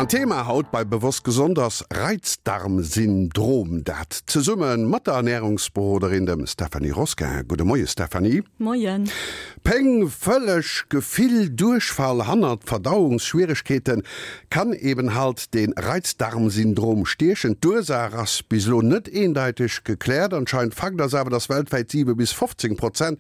An d'Thema haut bei Bewosst Gesond ass Reizdarmsyndrom. Dat zesumme mat der Ernärungsberoderin, dem Stéphanie Rosquin. Gudde Moie Stéphanie. Moien. Péng, vëlleg Gefill, Duerchfall hannert Verdauungsschwieregkeeten, kann eben halt de Reizdarmsyndrom stiechen. D'Ursaach ass bis elo net eendeiteg gekläert. Anscheinend Fakt ass awer, dass weltwäit 7 bis 15 Prozent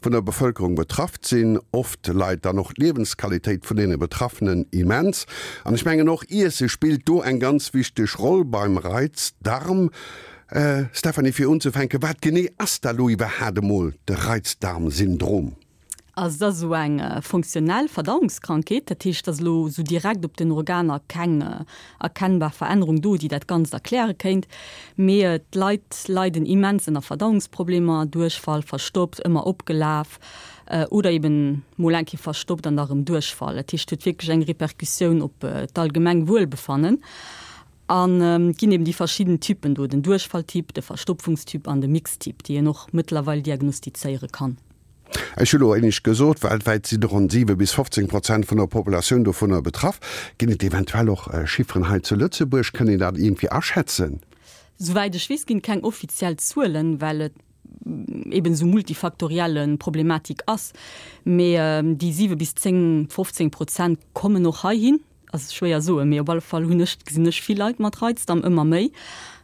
vun der Bevëlkerung betrafft sinn. Oft leit dann och d'Liewensqualitéit vun deene Betraffenen immens. An ech mengen och Iesse spillt do eng ganz wichteg Roll beim Reizdarm. Stéphanie, fir unzefänken, wat genee ass da lo iwwerhaat emol de Reizdarmsyndrom? Also et ass esou eng funktionell Verdauungskrankheet, dat heescht, et ass elo esou direkt op den Organer keng erkennbar Verännerung do, déi dat Ganzt erkläre kéint. Mee d'Leit leiden immens ënner Verdauungsproblemer, Duerchfall, verstoppt, ëmmer opgelaf oder eben mol eng Kéier verstoppt an da rëm Duerchfall. Dat heescht, et huet wierklech eng Repercussioun op d'allgemeng Wuelbefannen. An et ginn eben déi verschidden Typen do, den Duerchfalltyp, de Verstopfungstyp an de Mixtyp, déi een och mëttlerweil diagnostizéiere kann. Ech hu lo éinescht gesot, weltwäit sinn ronn 7 bis 15 Prozent vun der Populatioun dovunner betraff. Ginn et eventuell och Chifferen hei zu Lëtzebuerg? Kënnt een dat iergendwéi aschätzen? Souwäit ech weess, ginn et keng offiziell Zuelen, well et eben esou multifaktorielle Problematik ass. Mee déi 7 bis 10, 15 Prozent kommen och heihin. Ass schwéier soen, mee op alle Fall hunn ech, gesinn ech vill Leit mat Reizdarm, ëmmer méi.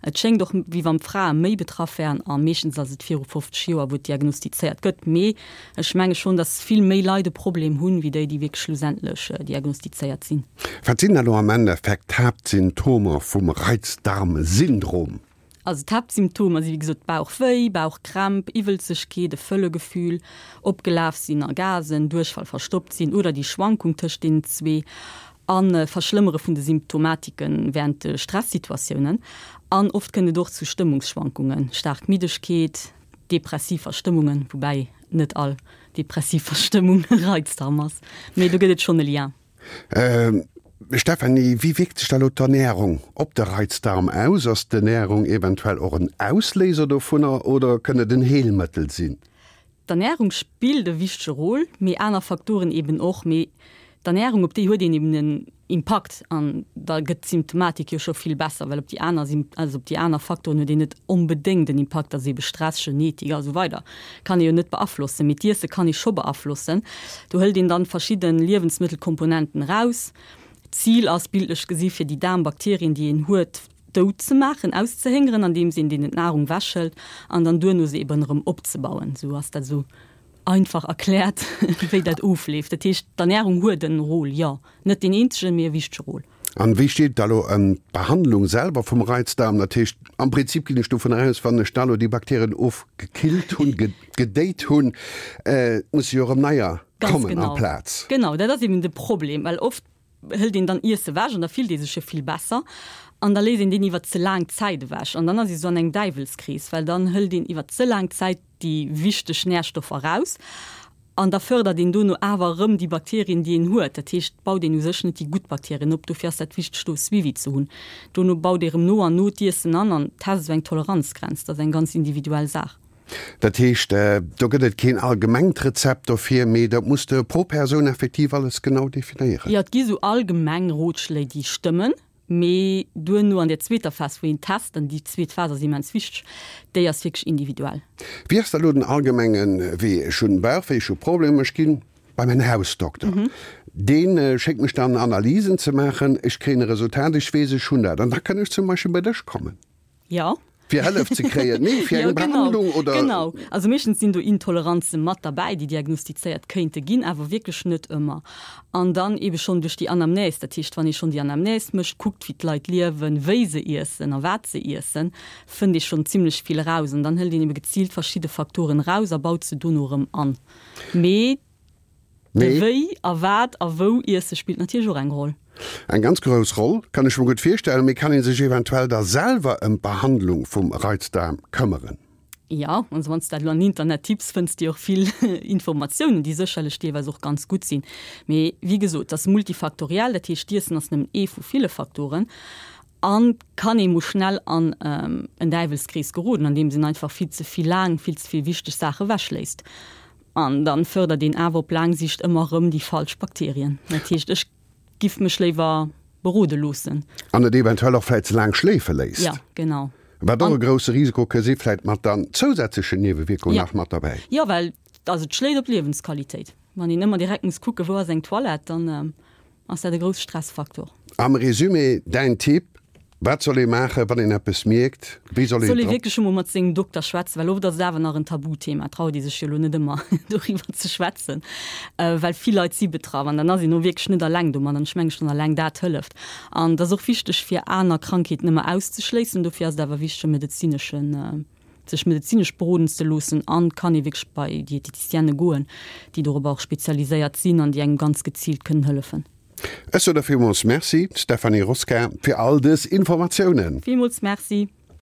Et schéngt och wéi wann d'Frae méi betraff wären a meeschtens ass et viru 50 Joer wou et diagnostizéiert gëtt. Mee ech menge schonn, datt vill méi Leit e Problem hunn, wéi déi, déi wierklech schlussendlech diagnostizéiert sinn. Wat sinn da lo am Endeffekt d'Haaptsymptomer vum Reizdarmsyndrom? Also d'Haaptsymptomer si wéi gesot Bauchwéi, Bauchkrämp, Iwwelzegkeet, e Fëllegefühl, opgelaf sinn a Gasen, Duerchfall, verstoppt sinn oder déi Schwankung tëscht deenen zwee a Verschlëmmere vun de Symptomatike wärend de Stressituatiounen. An oft kënnt et och zu Stëmmungsschwankungen, staark Middegkeet, depressiv Verstëmmungen, woubäi net all depressiv Verstëmmung e Reizdarm ass, mee do gëtt et schonn e Lien. Stéphanie, wéi wierkt sech da lo d'Ernärung op de Reizdarm aus? Ass d'Ernärung eventuell och en Ausléiser dovunner oder kënn et en Heelmëttel sinn? D'Ernärung spillt e wichtege Rôle, mee aner Faktoren eben och. Mee d'Ernärung, op déi huet een eben en Impakt an da gëtt d'Symptomatik jo scho vill besser, well op déi aner, also op déi aner Faktoren huet een net onbedéngt en Impakt, dat ass ebe Stress, Genetik a sou weider. Kann ee jo net beaflossen, mee d'Iesse kann ee scho beaflossen. Do hëlt een dann verschidde Liewensmëttelkomponenten eraus. D'Zil ass, bildlech gesi fir déi Daarmbakterien, déi een huet, dout ze maachen, auszehéngeren, andeems een deenen d'Nahrung wechhëlt an dann duerno se eben erëm opzebauen. Esou ass dat esou einfach erkläert, wéi dat ofleeft. Dat heescht, d'Ernärung huet en Rôle, jo. Net deen eenzegen, mee e wichtege Rôle. An wéi steet et da lo ëm d'Behandlung selwer vum Reizdarm? Dat heescht, am Prinzip ginn ech dovun aus, wann ech da lo déi Bakterien ofgekillt hunn, gedéit hunn, musse jo erëm neier kommen amplaz. Genau, dat ass eben de Problem, well oft hëlt een dann Iesse ewech an da fillt ee sech jo vill besser an da léisst een deen iwwer ze laang Zäit ewech an dann ass ee sou an engem Däiwelskrees, well dann hëlt een iwwer ze laang Zäit déi wichteg Närstoffer eraus An da fërdert een dono awer erëm déi Bakterien, déi een huet. Dat heescht, baut een u sech net déi gutt Bakterien op. Dofir ass dat wichteg, do e Suivi ze hunn. Dono baut ee erëm no an no d'Iessen an an test esou eng Toleranzgrenz. Dat ass eng ganz individuell Saach. Dat heescht, do gëtt et keen allgemengt Rezept dofir, mee dat muss de pro Persoun effektiv alles genau definéieren. Jo, et gi sou allgemeng Rotschléi, déi stëmmen. Mee duerno an der zweeter Phas, wou een test, an déi zweet Phas ass immens wichteg, déi ass wierklech individuell. Wéi ass da lo den allgemenge Wee? Ech hunn Bauchwéi, ech hu Problemer, ech ginn bei mäin Hausdokter, dee schéckt mech dann Analysen ze maachen, ech kréien e Resultat, ech weess, ech hunn dat, an da kënn ech zum Beispill bei dech kommen. Jo. Fir Hëllef ze kréien, nee, fir eng Behandlung oder? Genau. Also meeschtens sinn do Intoleranze mat derbäi, déi diagnostizéiert kéinte ginn, awer wierklech net ëmmer. An dann eebe schonn duerch déi Anamnèse, dat heescht, wann ee schonn déi Anamnèse mécht, kuckt, wéi d'Leit liewen, wéi se iessen a wat se iessen, fënnt ee schonn zimlech vill eraus. An dann hëlt een eebe geziilt verschidde Faktoren eraus a baut se dono erëm an. Mee. De wéi a wat a wou iesse spillt natierlech och eng Roll. Eng ganz grouss Roll, kann ech mer gutt virstellen. Mee kann ee sech eventuell da selwer ëm d'Behandlung vum Reizdaarm këmmeren? Jo, also wann s de dat elo an Internet tipps, fënns de och vill Informatiounen, déi sécherlech deelweis och ganz gutt sinn. Mee wéi gesot, et ass multifaktoriell, dat heescht d'Iessen ass nëmmen ee vu ville Faktoren an kann ee mol schnell an en Däiwelskrees geroden, andeems een einfach vill ze vill laang vill ze vill wichteg Saache ewechléisst. An dann fördert een awer op laang Sicht ëmmer erëm déi falsch Bakterien. Dat heescht, ech giff mech léiwer. berode loossen. An et eventuell och vläit ze laang schléife léisst. Jo, genau. Wat och e grousse Risiko ka si, vläit mat dann zousätzlechen Niewewierkungen nach mat derbäi. Jo, well also et schléit op d'Liewensqualitéit. Wann een ëmmer direkt muss kucken, wou ass eng Toilette, dann ass dat e grousse Stressfaktor. Am Résumé, däin Tipp, Wat soll ee maachen, wann een eppes mierkt? Wéi soll een Soll ee wierklech emol mat sengem Dokter schwätzen, well oft ass et awer nach en Tabuthema, traut ee sech jo elo net ëmmer doriwwer ze schwätzen, well vill Leit si betraff an dann ass een och wierklech net alleng domat an ech menge schonn alleng dat hëlleft. An et ass och wichteg fir aner Krankheeten ëmmer auszeschléissen, dofir ass et awer wichteg e medezineschen, sech medezinesch beroden ze loossen an kann ee wierklech bei Dieteticienne goen, déi dorobber och spezialiséiert sinn an déi engem ganz geziilt kënnen hëllefen. Ech soen der villmools Merci, Stéphanie Rosquin, fir all dës Informatiounen. Villmools Merci.